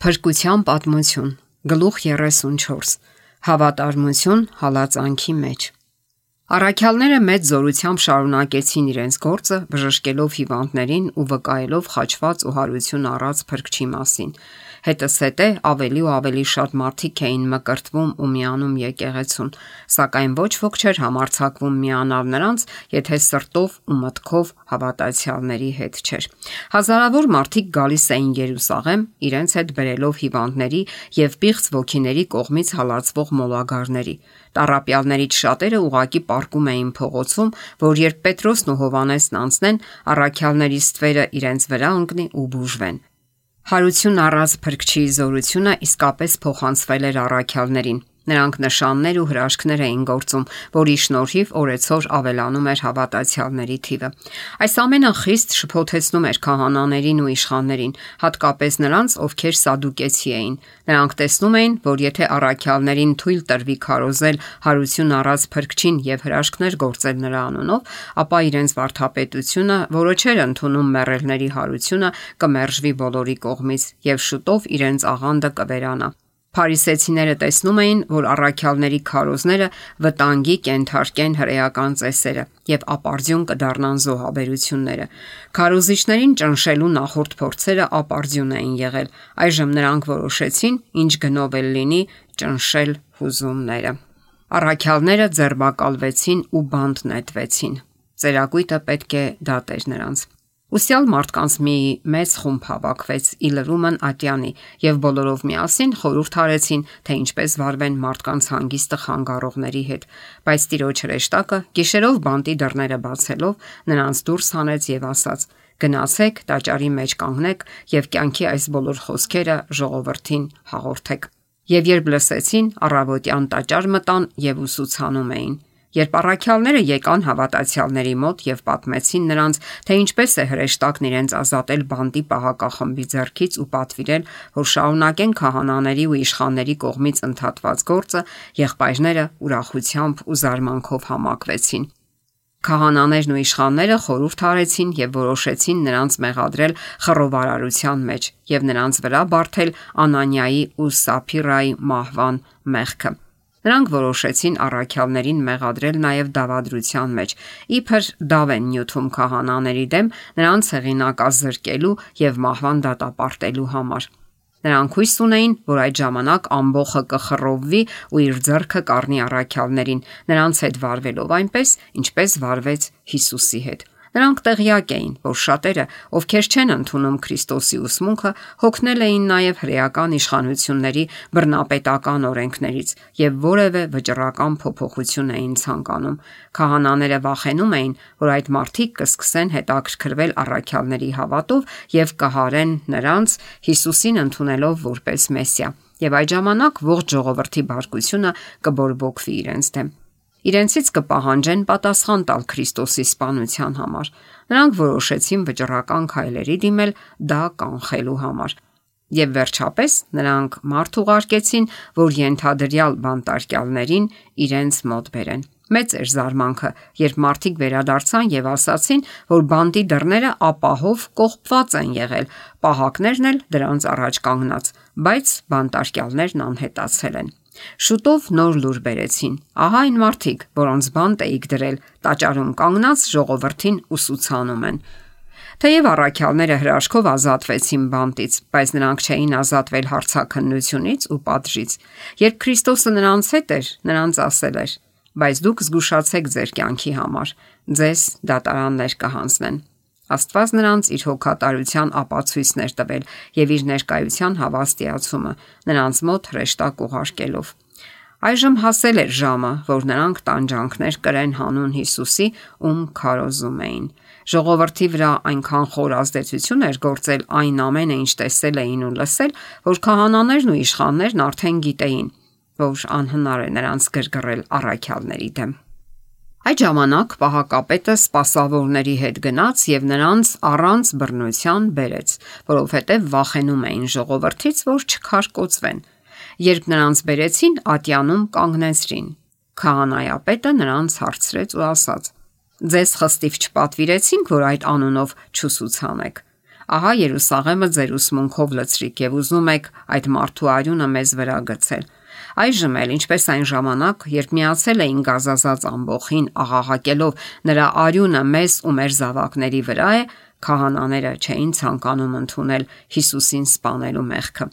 Փրկության պատմություն, գլուխ 34, հավատարմություն հալածանքի մեջ։ Առաքյալները մեծ զորությամբ շարունակեցին իրենց գործը, բժշկելով հիվանդներին ու վկայելով խաչված ու հարություն առած Փրկչի մասին։ Հետզհետե ավելի ու ավելի շատ մարդիկ էին մկրտվում ու միանում եկեղեցուն, սակայն ոչ ոք չէր համարձակվում միանալ նրանց, եթե սրտով ու մտքով հավատացյալների հետ չէր։ Հազարավոր մարդիկ գալիս էին Երուսաղեմ, իրենց հետ բերելով հիվանդների եւ պիղծ ոգիների կողմից հալածվող մոլագարների։ Տառապյալներից շատերը ուղակի պառկում էին փողոցում, որ երբ Պետրոսն ու Հովհաննեսն անցնեն, առաքյալների ստվերը իրենց վրա ընկնի ու բուժվեն։ Հարություն առած Փրկչի զորությունը իսկապես փոխանցվել էր առաքյալներին։ Նրանք նշաններ ու հրաշքներ էին գործում, որի շնորհիվ օրեցօր ավելանում էր հավատացյալների թիվը։ Այս ամենը խիստ շփոթեցնում էր քահանաներին ու իշխաններին, հատկապես նրանց, ովքեր սադուկեցի էին։ Նրանք տեսնում էին, որ եթե առաքյալներին թույլ տրվի քարոզել հարություն առած Փրկչին եւ հրաշքներ գործել նրա անունով, ապա իրենց վարդապետությունը, որը չէր ընդունում մեռելների հարությունը, կմերժվի բոլորի կողմից եւ շուտով իրենց աղանդը կվերանա։ Փարիսեցիները տեսնում էին, որ առաքյալների քարոզները վտանգի կենթարկեն հրեական ծեսերը եւ ապարդյուն կդառնան զոհաբերությունները։ Քարոզիչներին ճնշելու նախորդ փորձերը ապարդյուն էին եղել։ Այժմ նրանք որոշեցին, ինչ գնով էլ լինի, ճնշել հուզումները։ Առաքյալները ձերբակալվեցին ու բանտ նետվեցին։ Ծերակույտը պետք է դատեր նրանց։ Ուսյալ մարդկանց մի մեծ խումբ հավաքվեց Իլրումն ատյանի եւ բոլորով միասին խորհուրդ արեցին, թե ինչպես վարվեն մարդկանց հանգիստը խանգարողների հետ, բայց Տիրոջ հրեշտակը գիշերով բանտի դռները բացելով նրանց դուրս հանեց եւ ասաց. «Գնացեք, տաճարի մեջ կանգնեք եւ կյանքի այս բոլոր խոսքերը ժողովրդին հաղորդեք»։ Եվ երբ լսեցին, առավոտյան տաճար մտան եւ ուսուցանում էին։ Երբ առաքյալները եկան հավատացյալների մոտ եւ պատմեցին նրանց, թե ինչպես է հրեշտակն իրենց ազատել բանտի պահակախմբի ձեռքից ու պատվիրել, որ շարունակեն քահանաների ու իշխանների կողմից ընդհատված գործը, եղբայրները ուրախությամբ ու զարմանքով համակվեցին։ Քահանաներն ու իշխանները խորհուրդ արեցին եւ որոշեցին նրանց մեղադրել խռովարարության մեջ եւ նրանց վրա բարթել Անանիայի ու Սափիրայի մահվան մեղքը։ Նրանք որոշեցին առաքյալներին մեղադրել նաև դավադրության մեջ, իբր դավ են նյութում քահանաների դեմ նրանց հեղինակազրկելու եւ մահվան դատապարտելու համար։ Նրանք հույս ունեին, որ այդ ժամանակ ամբոխը կխռովվի ու իր ձեռքը կառնի առաքյալներին, նրանց հետ վարվելով այնպես, ինչպես վարվեց Հիսուսի հետ։ Նրանք տեղյակ էին, որ շատերը, ովքեր չեն ընդունում Քրիստոսի ուսմունքը, հոգնել էին նաև հրեական իշխանությունների բռնապետական օրենքներից եւ որևէ վճռական փոփոխություն էին ցանկանում։ Քահանաները վախենում էին, որ այդ մարդիկ կսկսեն հետաքրքրվել առաքյալների հավատով եւ կհարեն նրանց Հիսուսին ընդունելով որպես Մեսիա, եւ այդ ժամանակ ողջ ժողովրդի բարկությունը կբորբոքվի իրենց դեմ։ Իրենցից կպահանջեն պատասխան տալ Քրիստոսի սպանության համար։ Նրանք որոշեցին վճռական քայլերի դիմել դա կանխելու համար։ Եվ վերջապես նրանք մարդ ուղարկեցին, որ ենթադրյալ բանտարկյալներին իրենց մոտ բերեն։ Մեծ էր զարմանքը, երբ մարդիկ վերադարձան եւ ասացին, որ բանտի դռները ապահով կողպված են եղել, պահակներն էլ դրանց առաջ կանգնած, բայց բանտարկյալներն անհետացել են։ Շուտով նոր լուր բերեցին։ Ահա այն մարդիկ, որոնց բանտ էիք դրել, տաճարում կանգնած ժողովրդին ուսուցանում են։ Թեև առաքյալները հրաշքով ազատվեցին բանտից, բայց նրանք չէին ազատվել հարցաքննությունից ու պատժից։ Երբ Քրիստոսը նրանց հետ էր, նրանց ասել էր. «Բայց դուք զգուշացեք ձեր կյանքի համար, ձեզ դատարաններ կհանձնեն»։ Աստված նրանց իր հոգատարության ապացույցներ տվել եւ իր ներկայության հավաստիացումը նրանց մոտ հրեշտակ ուղարկելով։ Այժմ հասել էր ժամը, որ նրանք տանջանքներ կրեն հանուն Հիսուսի, ում քարոզում էին։ Ժողովրդի վրա այնքան խոր ազդեցություն էր գործել այն ամենը, ինչ տեսել էին ու լսել, որ քահանաներն ու իշխաններն արդեն գիտեին, որ անհնար է նրանց գրգռել առաքյալների դեմ։ Այդ ժամանակ պահակապետը սպասավորների հետ գնաց եւ նրանց առանց բռնության բերեց, որովհետեւ վախենում էին ժողովրդից, որ չքարկոծվեն։ Երբ նրանց բերեցին, ատյանում կանգնեցրին։ Քահանայապետը նրանց հարցրեց ու ասաց. «Ձեզ խստիվ չպատվիրեցինք, որ այդ անունով չուսուցանեք»։ Ահա Երուսաղեմը ձեր ուսմունքով լցրիք եւ ուզում եք այդ մարդու արյունը մեզ վրա գցել։ Այժմ էլ, ինչպես այն ժամանակ, երբ միացել էին գազազած ամբոխին, աղաղակելով նրա արյունը մեզ ու մեր զավակների վրա է, քահանաները չէին ցանկանում ընդունել Հիսուսին սպանելու մեղքը։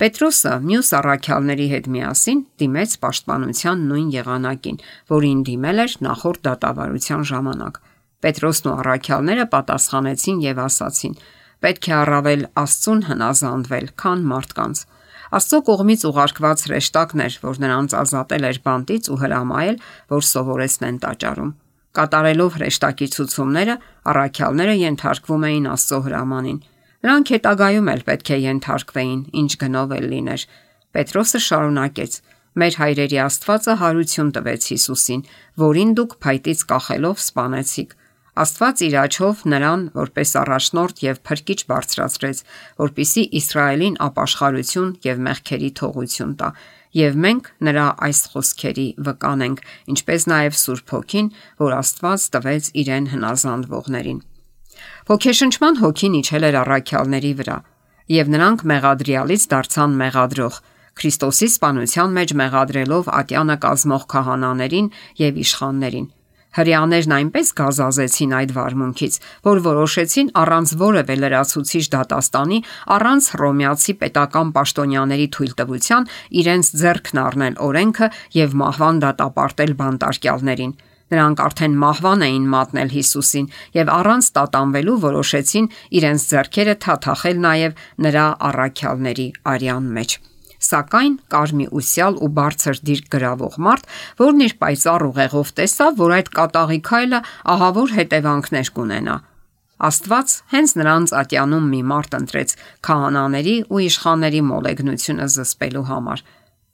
Պետրոսը մյուս առաքյալների հետ միասին դիմեց պաշտպանության նույն եղանակին, որին դիմել էր նախորդ դատավարության ժամանակ։ Պետրոսն ու առաքյալները պատասխանեցին եւ ասացին. պետք է առավել Աստծուն հնազանդվել, քան մարդկանց։ Աստծո կողմից ուղարկված հրեշտակն էր, որ նրանց ազատել էր բանտից ու հրամայել, որ սովորեցնեն տաճարում։ Կատարելով հրեշտակի ցուցումները, առաքյալները ենթարկվում էին Աստծո հրամանին։ Նրանք հետագայում էլ պետք է ենթարկվեին, ինչ գնով էլ լիներ։ Պետրոսը շարունակեց. մեր հայրերի Աստվածը հարություն տվեց Հիսուսին, որին դուք փայտից կախելով սպանեցիք։ Աստված իր աջով նրան որպես առաջնորդ եւ փրկիչ բարձրացրեց, որպիսի Իսրայելին ապաշխարություն եւ մեղքերի թողություն տա, եւ մենք նրա այս խոսքերի վկան ենք, ինչպես նաեւ Սուրբ Հոգին, որ Աստված տվեց իրեն հնազանդվողներին։ Ոգեշնչման հոգին իջել էր առաքյալների վրա, եւ նրանք մեղադրյալից դարձան մեղադրող, Քրիստոսի սպանության մեջ մեղադրելով ատյանը կազմող քահանաներին եւ իշխաններին։ Հրեաներն այնպես գազազեցին այդ վարմունքից, որ որոշեցին առանց որևէ լրացուցիչ դատաստանի, առանց հռոմեացի պետական պաշտոնյաների թույլտվության իրենց ձեռքն առնել օրենքը եւ մահվան դատապարտել բանտարկյալներին։ Նրանք արդեն մահվան էին մատնել Հիսուսին եւ առանց տատանվելու որոշեցին իրենց ձեռքերը թաթախել նաեւ նրա առաքյալների արյան մեջ։ Սակայն կար մի ուսյալ ու բարձր դիրք գրավող մարդ, որն իր պայծառ ուղեղով տեսավ, որ այդ կատաղի քայլը ահավոր հետևանքներ կունենա։ Աստված հենց նրանց ատյանում մի մարդ ընտրեց քահանաների ու իշխանների մոլեգնությունը զսպելու համար։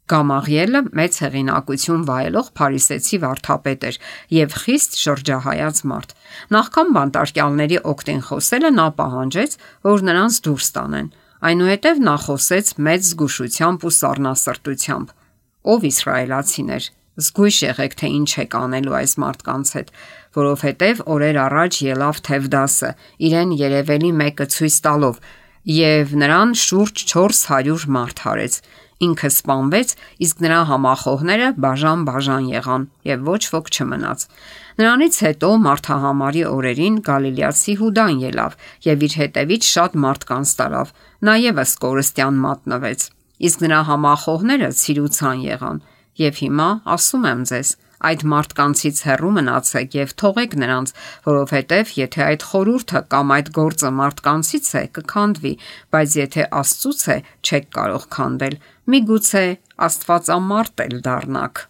Գամաղիելը մեծ հեղինակություն վայելող փարիսեցի վարդապետ էր եւ խիստ շրջահայաց մարդ։ Նախքան բանտարկյալների օգտին խոսելը նա պահանջեց, որ նրանց դուրս տանեն։ Այնուհետև նա խոսեց մեծ զգուշությամբ ու սառնասրտությամբ. «Ով իսրայելացիներ, զգույշ եղեք, թե ինչ եք անելու այս մարդկանց հետ, որովհետև օրեր առաջ ելավ Թևդասը, իրեն երևելի մեկը ցույց տալով, եւ նրան շուրջ 400 մարդ հարեց։ Ինքը սպանվեց, իսկ նրա համախոհները բաժան եղան եւ ոչ ոք չմնաց։ Նրանից հետո մարդահամարի օրերին Գալիլեացի Հուդան ելավ եւ իր հետևից շատ մարդկանց տարավ, նա եւս կորստյան մատնվեց, իսկ նրա համախոհները ցիրուցան եղան։ Եվ հիմա ասում եմ ձեզ, այդ մարդկանցից հեռու մնացեք եւ թողեք նրանց, որովհետեւ եթե այդ խորհուրդը կամ այդ գործը մարդկանցից է, կքանդվի, բայց եթե Աստծուց է, չեք կարող քանդել։ Միգուցե Աստվածամարդ էլ դառնաք»։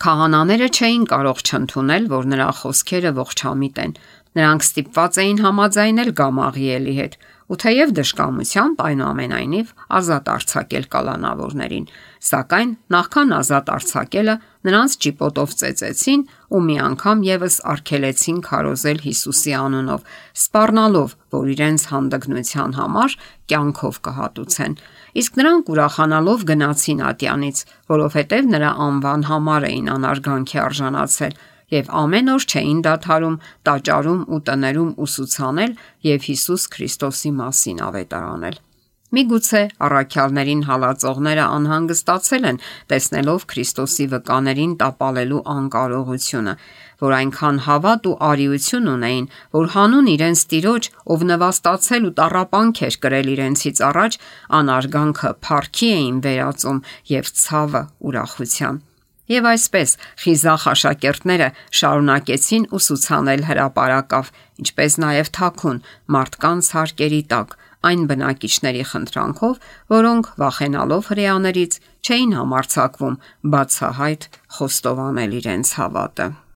Քահանաները չէին կարող չընդունել, որ նրա խոսքերը ողջամիտ են։ Նրանք ստիպված էին համաձայնել Գամաղիելի հետ, ու թեև դժկամությամբ, այնուամենայնիվ ազատ արձակել կալանավորներին, սակայն նախքան ազատ արձակելը նրանց ճիպոտով ծեծեցին ու մի անգամ եւս արգելեցին քարոզել Հիսուսի անունով, սպառնալով, որ իրենց հանդգնության համար կյանքով կհատուցեն։ Իսկ նրանք ուրախանալով գնացին ատյանից, որովհետև նրա անվան համար էին անարգանքի արժանացել եւ ամեն օր չէին դադարում տաճարում ու տներում ուսուցանել եւ Հիսուս Քրիստոսի մասին ավետարանել։ Միգուցե առաքյալներին հալածողները անհանգստացել են, տեսնելով Քրիստոսի վկաներին տապալելու անկարողությունը, որ այնքան հավատ ու արիություն ունեին, որ հանուն իրենց Տիրոջ, ով նվաստացել ու տառապանք էր կրել իրենցից առաջ, անարգանքը փառքի էին վերածում եւ ցավը ուրախության։ Եվ այսպես խիզախ աշակերտները շարունակեցին ուսուցանել հրապարակավ, ինչպես նաև թաքուն մարդկանց հարկերի տակ, այն բնակիչների խնդրանքով, որոնք վախենալով հրեաներից չէին համարձակվում բացահայտ խոստովանել իրենց հավատը։